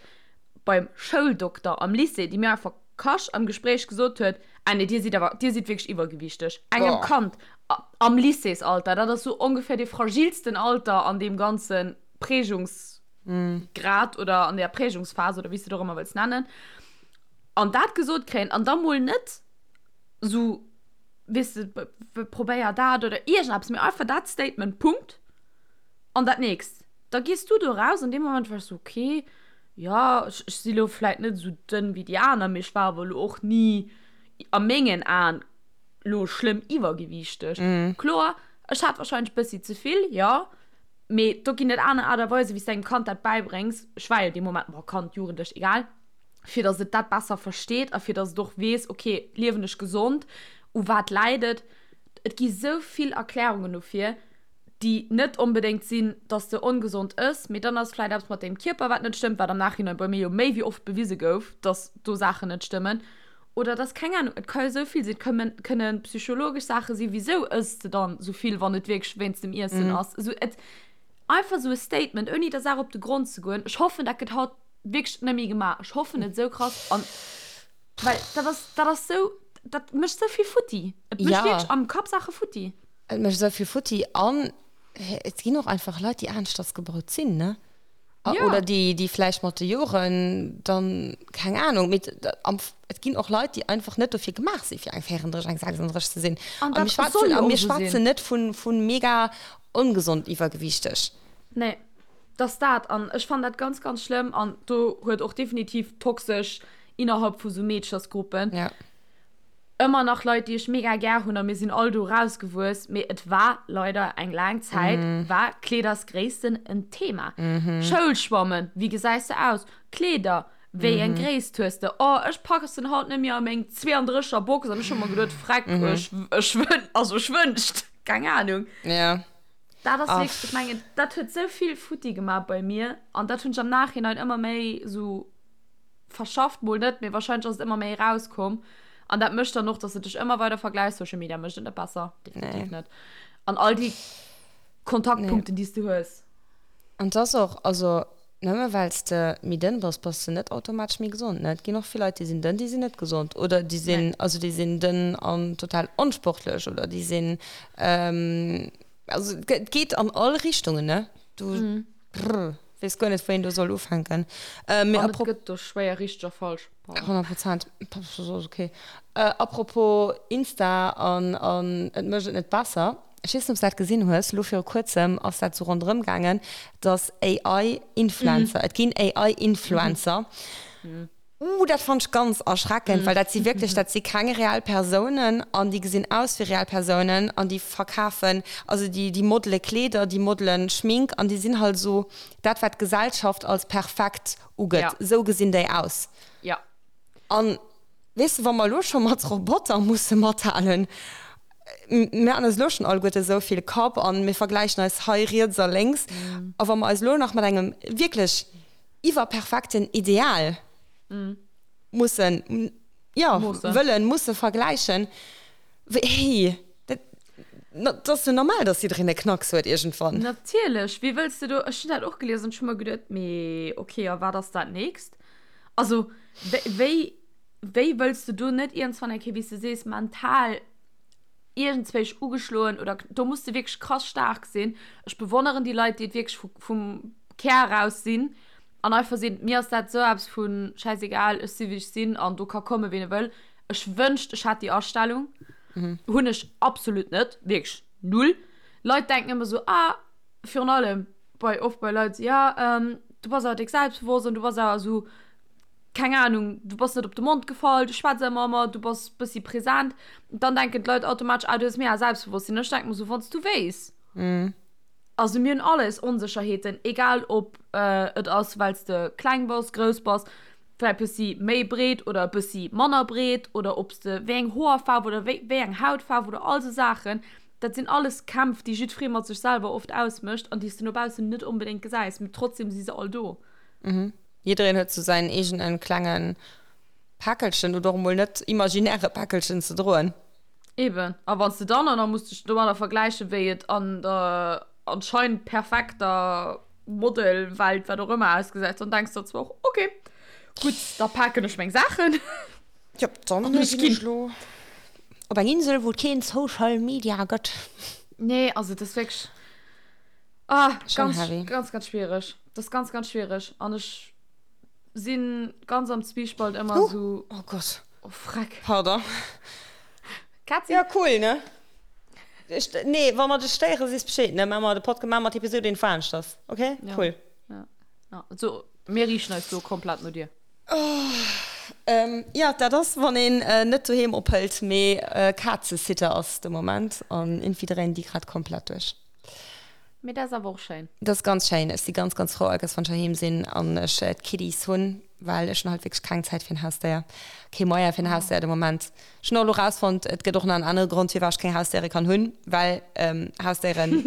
beim Schouldokter am Lycée, déi mir einfach Kasch am Gespréich gesot huet, Ah nee, Dir sidd awer, Dir sidd wierklech iwwergewiichteg. Engem Kand am Lycéesalter, dat ass sou ongeféier dee fragilsten Alter an deem ganze Prägungsgrad oder an där Prägungsphas oder wéi s de et och ëmmer wëlls nennen, an dat gesot kréien an da mol net sou, weess de, probéier dat oder iergendeppes, mee einfach dat Statement, Punkt. An dat nächst, da gees du do raus an deem Moment war ech sou, okay, jo, ech, ech si lo vläit net esou dënn wéi déi aner, mee ech war awer lo och ni a mengen Aen lo schlëmm iwwergewiichteg. Kloer, ech hat warscheinlech bëssi ze vill, jo, mee do ginn et aner Aart a Weisen, wéi s de engem Kand dat bäibréngs. Ech war jo dee Moment, bon, Kand, Jugendlech, egal, fir datt et dat besser versteet a fir datt et och weess, okay, liewen ech gesond, u wat läit et? Et gi sou vill Erklärungen dofir. déi net onbedéngt sinn, dass de ongesond ëss, mee dann ass vläit eppes mat dengem Kierper, wat net stëmmt, wat am Nachhinein bei mir jo méi wéi oft bewise gouf, dass do Saachen net stëmmen. Oder dass, keng Ahnung, et ka jo esou vill sinn, et kënnen, kënne psychologesch Saache sinn, wisou ëss de dann esou vill, wann et wierklech wéinst dem Iessen ass. Esou et, einfach esou e Statement, ouni der Saach op de Grond ze goen. Ech hoffen, dat gëtt haut wierklech net méi gemaach. Ech hoffen et esou krass an, well dat ass, dat ass esou, dat mécht esou vill futti. Et mécht wierklech am Kapp Saache futti. Et mécht esou vill futti an et ginn och einfach Leit, déi aneschters gebaut sinn, ne? Ja. Oder déi, déi vläicht mat de Joren dann, keng Ahnung, mee et ginn och Leit, déi einfach net dofir gemaach sinn, fir eng 34, eng 36 ze sinn. An dat soll jo och esou sinn. A mir schwätzen net vu, vu mega ongesond iwwergewiichteg. Nee, dat ass dat. An ech fannen dat ganz, ganz schlëmm. An do huet och definitiv toxesch innerhalb vu sou Meedchersgruppen. Ja. Ëmmer nach Leit déi ech mega gär hunn a mir sinn all do rausgewuess, mee et war leider eng laang Zäit war Kleedersgréissten en Thema. Schoulschwammen, wéi gesäis de aus? Kleeder, wéi eng Gréisst hues de? Oh ech passen haut net méi a meng 32 er Box an ech hu mer geduet, freck ech ech wën also ech wënscht, keng Ahnung. Dat ass wierklech, ech mengen dat huet sou vill futti gemaach bei mir an dat hunn ech am Nachhinein ëmmer méi sou verschafft, mol net, mee wahrscheinlech ass et ëmmer méi erauskomm. An dat mécht dann och, dass de dech ëmmer weider vergläichs. Social Media mécht et net besser, definitiv net. An all déi Kontaktpunkten, déi s du hues. An et ass och, also nëmme well s de méi dënn bass, bass de net automatesch méi gesond, ne? Et ginn och vill Leit, déi sinn dënn, déi sinn net gesond. Oder déi sinn, also déi sinn dënn an total onsportlech oder déi sinn, also et geet an all Richtungen, ne? Du, brr. Weess guer net, wou een do soll ufänken. Äh, mee An et gëtt do schwéier richteg a falsch. 100 Prozent. Okay. Äh, apropos Insta an, an et mécht et net besser. Ech weess net, ob s de dat gesinn hues. Elo viru kuerzem ass dat sou ronderëm gaangen, dass AI-Influencer, et ginn AI-Influencer. Uh, dat fannt ech ganz erschreckend, well dat si wierklech, dat si keng reell Persounen an déi gesinn aus wéi reell Persounen an déi verkafen, also déi, déi modele Kleeder, déi modelen Schmink an déi sinn halt esou dat, wat d'Gesellschaft als perfekt ugëtt, Ja. esou gesinn déi aus. Ja. An weess de, wa mer elo scho mat Roboter musse mathalen, mir han eis elo schonn alleguerte esou vill Kapp an mir vergläichen eis hei riets a lénks a wa mer eis elo nach mat engem wierklech iwwerperfekten Ideal mussen, jo, wëllen, musse vergläichen, hey, dat, dat ass jo normal, dass jiddereen e Knacks huet iergendwann. Natierlech, wéi wëlls de do, ech hunn dat och gelies an ech hu mer geduet, mee ok, a wat ass dat nächst? Also, wéi, wéi wëlls de do net iergendswann eng Kéier, wéi s de sees, mental iergendzwéich ugeschloen oder do muss de wierklech krass staark sinn. Ech bewonneren déi Leit, déi et wierklech vu, vum Kär eraus sinn an einfach sinn, mir ass dat esou eppes vu schäisegal, ech si wéi ech sinn an do ka komme ween e wëll. Ech wënscht ech hätt déi Astellung, hunn ech absolut net, wierklech null. Leit denken ëmmer esou, ah, virun allem bei, oft bei Leit, jo, du bass awer déck selbstbewosst an du bass awer esou, keng Ahnung, du bass net op de Mond gefall, du schwätz ëmmer ëmmer, du bass bëssi present, dann denken d'Leit automatesch, ah, du hues mega Selbstbewosstsinn. Ech denke mer sou, wann s du wéis. Also mir hunn all eis Onsécherheeten, egal ob et ass, well s de kleng bass, grouss bass, vläicht bëssi méi breet oder e bëssi manner breet oder ob s de wéi eng Hoerfaarf oder wéi wéi eng Hautfaarf oder all sou Saachen. Dat sinn alles Kämpf, déi jiddweree mat sech selwer oft ausmécht an déi s de no baussen net onbedéngt gesäis, mee trotzdem si se all do. Jiddereen huet sou säin eegenen klengen Päckelchen oder och emol net imaginäre Päckelchen ze droen. Eben, a wann s de dann och nach muss dech domadder vergläichen, wéi et an der anscheinend perfekter Modelwelt, wat och ëmmer, ausgesäit, dann denks de der zwar och, ok, gutt, da paken ech meng Saachen. Jop, dann ginn ech lo op eng Insel, wou et keen Social Media gëtt. Nee, also et ass wierklech, ah, ganz, ganz, ganz schwiereg. Das ist ganz, ganz schwierig. An ech sinn ganz am Zwiespalt ëmmer Huh. so. Oh Gott. Oh Freck. Pardon. Katzi. Ja, cool, ne? Ech, nee, wa mer dech stéieren, sees Bescheed, ne? Maa mer de Podcast, maa mer d'Episode een veranschters. Okay? Ja. Cool. Ja. Ja. So, mir riichen eis do komplett no dir. Oh, ähm, ja, dat ass, wann een äh, net doheem ophëlt, mee äh, Kazesitter ass de Moment an irgendwie dréinen déi grad komplett duerch. Mee dat ass awer och schéin. Dat ass ganz schéin. Ech si ganz, ganz frou allkéiers wann ech heiheem sinn an ech d'Kiddies hunn, well ech hunn halt wierklech keng Zäit fir en Hausdéier, kee Moyen fir en Hausdéier de Moment. Ech hunn och elo rausfonnt, et gëtt och nach en anere Grond firwat ech keng Hausdéiere kann hunn, well Hausdéieren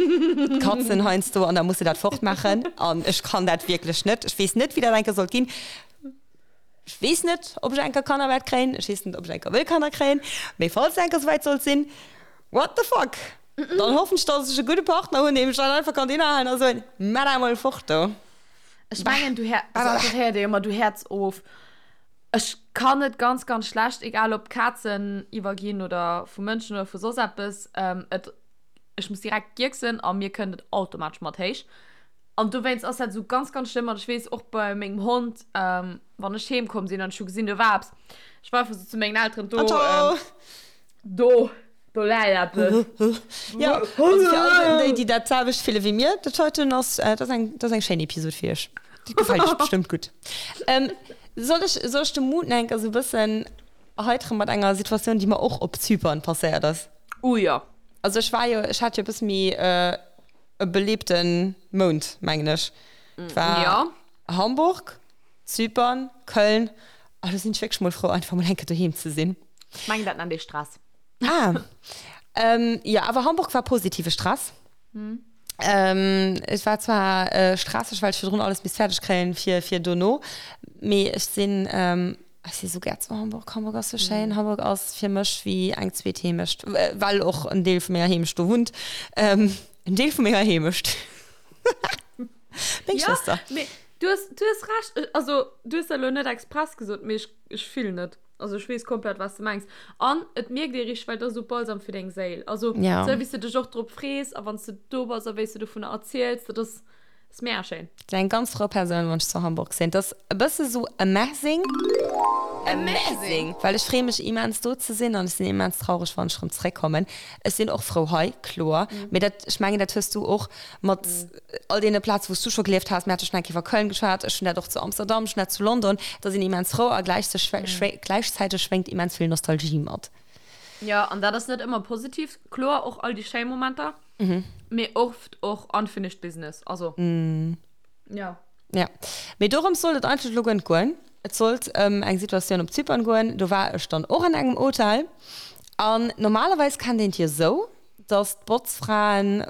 katzen heiansdo an da muss de dat fortmaachen an ech kann dat wierklech net. Ech weess net wéi dat eng Kéier sollt ginn. Ech weess net ob ech eng Kéier Kanner wäert kréien, ech weess net ob ech eng Kéier wëll Kanner kréien, mee falls et eng Kéier souwäit sollt sinn, What the fuck? Dann hoffen ech, dass ech e gudde Partner hunn, deem ech dann einfach kann hinnerhalen a soen, Maach dat emol fort do. Ech mengen, du héiers, also dat héiert ee jo ëmmer, du häerz of. Ech kann et ganz, ganz schlecht, egal ob Kazen iwwerginn oder vu Mënschen oder vu soss eppes, et, ech muss direkt gierksen a mir kënnt et automatesch mat héich. An dowéinst ass dat esou ganz, ganz schlëmm. An ech weess och bei mengem Hond, wann ech heem komm sinn an ech hu gesinn, do war eppes, ech war einfach esou zu mengen Elteren, do, Do, do läit eppes. Jo, also fir all déi, déi dat selwecht fille wéi mir, dat heiten ass, dat ass eng, dat ass eng schéin Episod fir iech. Déi gefält iech bestëmmt gutt. Soll ech, soll ech de Mood nach eng Kéier esou e bëssen erheiteren mat enger Situatioun, déi mer och op Zypern passéiert ass? Oh jo. Also ech war jo, ech hat jo e bësse méi e beleebte Mount, mengen ech. Et war Jo. Hamburg, Zypern, Köln, a lo sinn ech wierklech mol frou, einfach mol eng Kéier doheem ze sinn. Ech mengen, dat nennt ee Stress. Ah. Ähm, jo, awer Hamburg war positive Stress. Ähm, et war zwar äh, stresseg, well ech virdrun alles misst fäerdeg kréien fir, fir dono, mee ech sinn, ähm, ech si sou gär zu Hamburg. Hamburg ass sou schéin. Hamburg ass fir mech wéi eng zweet Heemecht, well och en Deel vu menger Heemecht do wunnt. Ähm, en Deel vu menger Heemecht. Meng Ja, Schwëster. mee du hues, du hues Recht. Also, du hues dat elo net express gesot, mee ech, ech fillen et. Also ech weess komplett wat s de mengs. An et mierkt ee richteg, well et ass esou Balsam fir deng Séil. Also Ja. esou wéi s de dech och drop frees a wann s de do bass a wéi s de dovunner erziels, dat ass. Ass mega schéin. Sinn eng ganz frou Persoun wann ech zu Hamburg sinn. Et ass e bësse sou amazing. Amazing! Well ech freeë mech immens do ze sinn an ech sinn immens traureg wann ech rëm zeréck kommen. Ech sinn och frou hei, kloer, mee dat, ech mengen dat hues du och mat all deene Plaze wou s du scho gelieft has. Mir hate schonn eng Kéier iwwer Köln geschwat, ech hunn dat och zu Amsterdam, ech hunn dat zu London. Da sinn immens frou a gläichzäiteg schwéngt immens vill Nostalgie mat. Jo, an dat ass net ëmmer positiv, kloer, och all déi schéi Momenter. Mee oft och unfinished business, also jo. Ja, mee dorëms sollt et eigentlech elo guer net goen. Et sollt ëm eng Situatioun op Zypern goen. Do war ech dann och an engem Hotel. An normalerweis kennt een et jo esou, dass d'Botzfraen,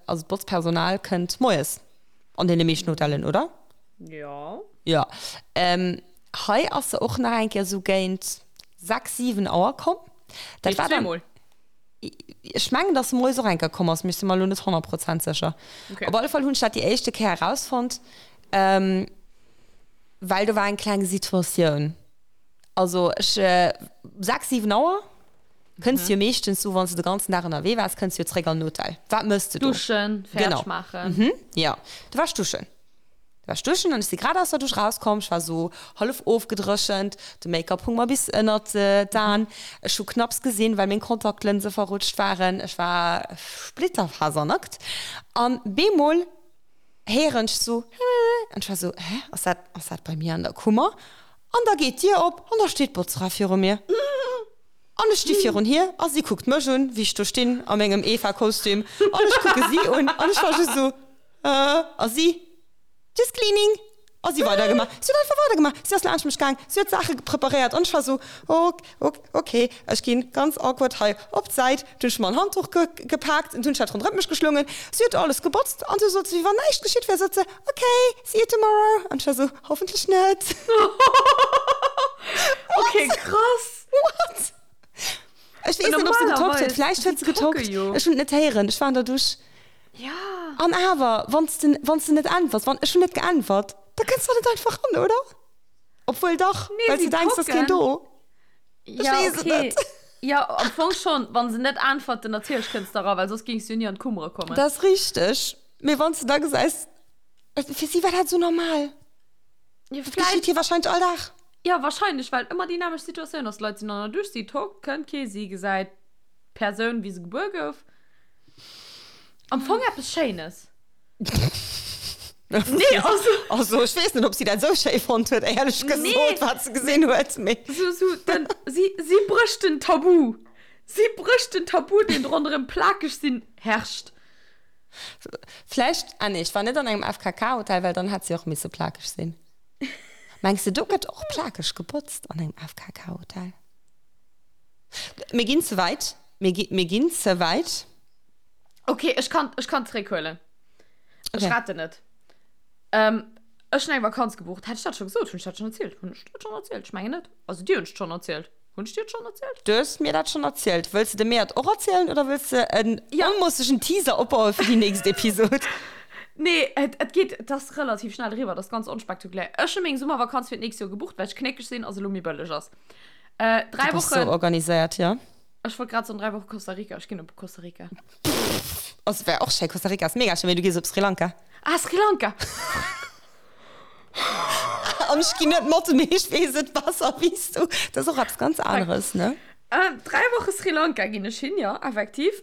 also d'Botzpersonal kënnt moies an deene meeschten Hotellen, oder? Jo. Jo. Hei ass se och nach eng Kéier esou géint 6, 7 Auer komm. Dat war dann. Ech mengen, dass se moies och eng Kéier komm ass, mee ech si mer elo net 100 Prozent sécher. Okay. Op alle Fall hunn ech dat déi éischte Kéier erausfonnt, ähm, well do war eng kleng Situatioun. Also ech, 6, 7 Auer kënns du jo meeschtens sou, wann s de de ganzen Dag ënnerwee waars, kënns du jo zréck an den Hotel. Wat mëss de do? Duschen, fäerdeg Genau. maachen. Mhm, jo. Du waars duschen. Du war ech duschen an ech si grad aus der Dusch rauskomm. Ech war sou hallef ofgedréchent, de Make-up hung mer bis ënnert d'Aen. Ech hu knapps gesinn, well meng Kontaktlënse verrutscht waren. Ech war splitterfasernackt an bemol héieren ech sou Hä? An ech war sou, Hä, ass dat, ass dat bei mir an der Kummer? An da geet d'Dier op an da steet d'Botzfra viru mir. An ech sti virun hir a si kuckt mech un, wéi ech do stinn a mengem Eva-Kostüm an ech kucke si un an ech war just sou, Äh, a si, Just cleaning. A si weidergemaach. Si huet einfach weidergemaach. Si ass laanscht mech gaang, si huet Saache preparéiert an ech war sou, Ok, ok, ok, ech ginn ganz awkward hei op d'Säit. Dunn hunn ech mer en Handduch ge gepaakt an hunn ech dat ronderëm mech geschlongen. Si huet alles gebotzt an du sot se, wéi wann näischt geschitt wär, sot se, Ok, see you tomorrow. An ech war sou, Hoffentlech net. Ok, krass. What? Ech weess net, ob se getockt huet. Vläicht huet se getockt. Ech hunn et net héieren. Ech war an der Dusch. Ja. An awer, wann s de, wann s de net äntwers, wann, ech hunn net geäntwert, da kënns de net einfach ran, oder? Obwuel dach, Nee, well s si de denks, dass keen tocken. do. Ech Ja, weess et okay. net. Ja, am Fong schon, wann se net äntwerten, natierlech kënns de era, well soss géings du jo ni an d'Kummere kommen. Dat ass richteg. Mee wann s de da gesäis, fir si war dat esou normal. Ja, Dat vläicht. geschitt hir wahrscheinlech all Dag. Ja, wahrscheinlech, well ëmmer déi nämmlecht Situatioun ass. D'Leit sinn an der Dusch, si tockt, kënnt kee, si gesäit d'Persoun, wéi se gebuer gouf. Am Fong eppes Schéines. Nee, also. Also, ech weess net, ob si dat esou schéi fonnt huet, éierlech gesot, Nee. wat se gesinn huet, mee. Sou, sou, den, si, si brécht den Tabu. Si brécht den Tabu, deen ronderëm plakeg sinn herrscht. Vläicht, ah nee, ech war net an engem FKK-Hotel, well dann hätt si och misse plakeg sinn. Mengs de, do gëtt och plakeg gebotzt an engem FKK-Hotel? Mir ginn ze wäit. Mir gi, mir ginn ze wäit. Okay, ech kann, ech kann zréckhuelen. Ech Okay. retten et. Ähm, ech hunn eng Vakanz gebucht. Hat ech dat scho gesot? Hunn ech dat schonn erzielt? Hunn ech dat schonn erzielt? Ech mengen net. Also dir hunn ech et schonn erzielt. Hunn ech dir et schonn erzielt? Du hues mir dat schonn erzielt. Wëlls de de mir et och erzielen oder wëlls de en Ja. onmossegen Teaser opbaue fir déi nächst Episod? Nee, et, et geet, et ass relativ schnell eriwwer. Et ass ganz onspektakulär. Ech hu meng Summervakanz fir d'nächst Joer gebucht, well ech knéckeg sinn a se elo méi bëlleg ass. Äh, Du dräi bass sou Wochen. organiséiert, jo. Ech wollt grad soen, 3 Woche Costa Rica. Ech ginn op Costa Rica. Also wär och schéi, Costa Rica ass mega schéi, mee du gees op Sri Lanka. Ah, Sri Lanka! An ech ginn net mat, mee ech weess et besser wéi s du. Dat ass och eppes ganz aneres, ne? 3 Woche Sri Lanka ginn ech hin, jo, effektiv.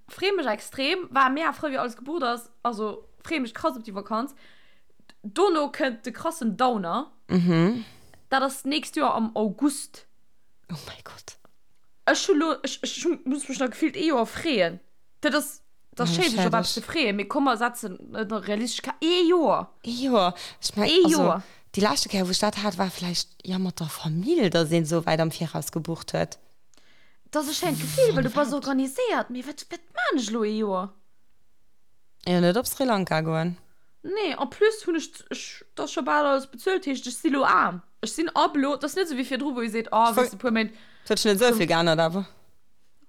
Free mech extrem. War mega frou, wéi alles gebucht ass. Also free mech krass op déi Vakanz. Dono kënnt de krassen Downer. Dat ass d'nächst Joer am August. Oh mäi Gott. Ech hu lo, ech, ech muss mech nach gefillt ee Joer freeën. Dat ass, dat ass schéin, sech op eppes ze freeën, mee komm mer setzen et nach realistesch ka ee Joer. Ee Joer. Ech meng, Ee also Joer. déi leschte Kéier, wou ech dat hat, war vläicht, jo, mat der Famill, datt een esou wäit am Viraus gebucht huet. Dat ass e schéint Gefill, well du bass organiséiert, mee wat, wat maan ech elo ee Joer? Jo, net op Sri Lanka goen. Nee, en plus hunn ech, ech, dat ass scho bal alles bezuelt, heescht ech si lo aarm. Ech sinn ab elo, dat ass net esou wéi virdru, wou ee seet, oh, weess de, puer Méint. Et huet sech net esou vill geännert awer.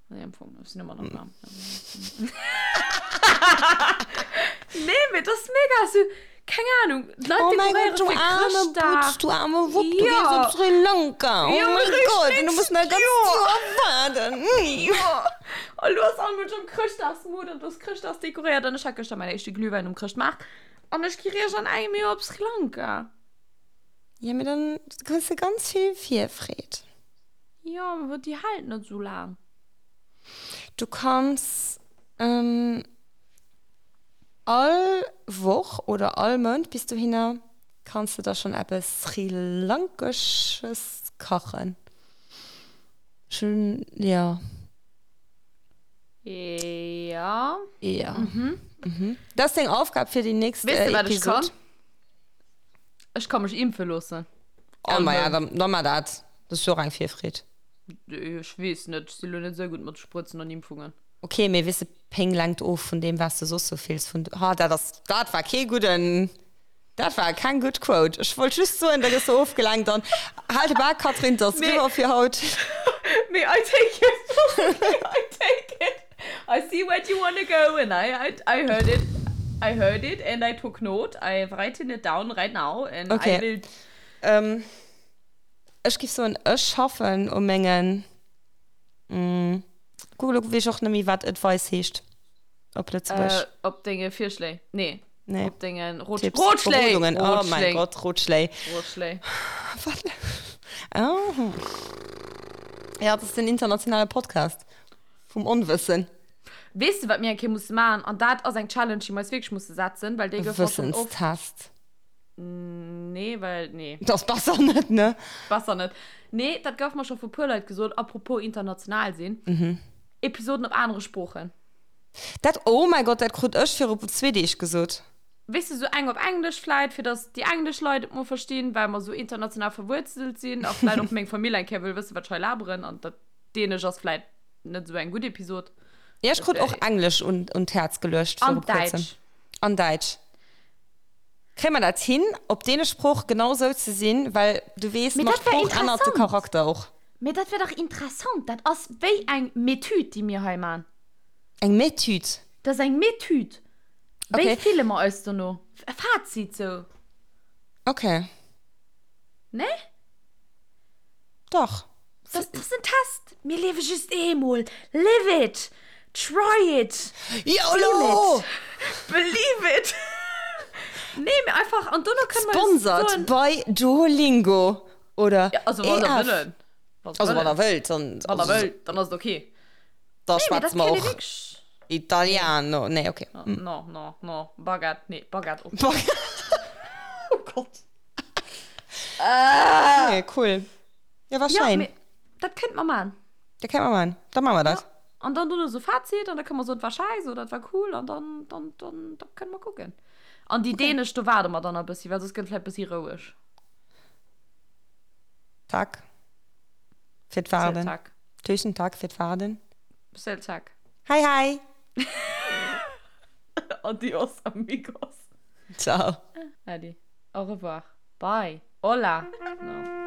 Nee, am Fong, ech sinn ëmmer nach aarm. Nee, mee dat ass mega esou, keng Anung, d'Leit Oh mäi dekoréiere Gott, du fir aarme Chrëschtdag. Butz, du aarme Wupp, du Ja. gees op Sri Lanka. Oh Ja, mäi richtig, Gott, an du muss nach e ganzt Joer. Joer waarden. Jo, a lo ass all Mënsch am Chrëschtdagsmood an du ass Chrëschtdags dekoréiert an ech hat gëschter mäin éischte Glühwäin um Chrëschtmaart. An ech gi riech an engem Joer op Sri Lanka. Ja, mee dann kriss de ganz vill Virfreed. Jo, mee déi hält net esou laang. Du kanns all Woch oder all Mount bis dohinner kanns de der schonn eppes Sri-Lankesches kachen. Ech hunn, jo. Ja. Ja. Mhm. Dat ass deng Aufgab fir déi nächst Weess de, wat ech Episod. kann? Ech ka mech impfe loossen. Ah, ma ja, dann, dann mar dat. Dat ass jo och eng Virfreed. Ech weess net, ech si lo net esou gutt mat Sprëtzen an Impfungen. Ok, mee weess de, Péng lenkt of vun deem, wat s de soss sou fills. Vun, ha, dat ass, dat war kee gudden, dat war keng gutt Quote. Ech wollt just soen, da gëss de ofgelenkt an hal de Bak, Catherine, 't ass Mee, riwwer fir haut. mee I take it, I take it. I see where you wanna go and I, I, I heard it, I heard it and I took note. I've written it down right now and I Ok, will. ähm, ech giff soen, ech schaffen u mengen, Kuck, elo weess ech och net méi, wat Advice heescht op Lëtzebuergesch. Äh, op denge Virschléi. Nee. Nee. Op dengen Rot Tipps. Rotschléi! Berodungen. Oh mein Rotschléi. Gott, Rotschléi. Rotschléi. Wat? Oh. Ja, dat ass den internationale Podcast vum Onwëssen. Weess de, wat mir eng Kéier musse maachen? An dat ass eng Challenge, déi mir eis wierklech musse setzen, well déi E gouf mer schonn oft. Wëssenstest. Nee, well, nee. Dat ass besser net, ne? Besser net. Nee, dat gouf mer scho vu puer Leit gesot, apropos international sinn. Episoden op anere Sproochen. Dat, oh mäi Gott, dat krut ech viru zwee Deeg gesot. Weess de, sou eng op Englesch vläit, fir datt déi englesch Leit et mol verstinn, well mer sou international verwuerzelt sinn a vläit och meng Famill eng Kéier wëll wëssen, wat ech hei laberen. An dat Dänesch ass vläit net sou eng gutt Episod. Ja, ech krut och Englesch un, un d'Häerz geluecht An viru kuerzem. Däitsch. An Däitsch. Kréie mer dat hin, op deene Sprooch genau sou ze sinn? Well du weess, Mee mat dat wär Sprooch ännert de interessant. Charakter och. Mee dat wär dach interessant. Dat ass wéi eng Metüd, déi mir hei man. Eng Metüd? Dat ass eng Metüd. Wéi Okay. fille mer eis dono? E Fazit sou. Okay. Nee? Dach. Dat ass en Test. Mir liewe just eemol. Live it! Try it! YOLO! Feel it! Believe it! Nee, mee einfach, an dono kënne mer jo Sponsored soen. by Duolingo oder Ja, also wann der EF. wëllen. Wann Also wann der der wëllt, dann. Wann der wëllt, dann ass et okay. Da Nee, mee dat schwätze mer kéint ee och wierklech. Italiano. Nee, okay. No, no, no. Baguette, nee, Baguette och. Baguette. Oh Gott. Nee, cool. Ja, war Ja, schein. mee dat kéint mer man. Dat kéint mer man. Da man mer dat. Ja. An dann dono so Fazit an da kënne mer soen, et war scheiss oder et war cool an dann, dann, dann, da kënne mer kucken. An déi dänesch, do waarde mer dann e bëssi, well soss gëtt et vläicht bëssi roueg. Tack. Fir Selv d'Waarden. tack. Tusen tack fir d'Waarden. Selv tack. Hei hei! Adios amigos. Ciao. Adi. Au revoir. Bye. Hola. No.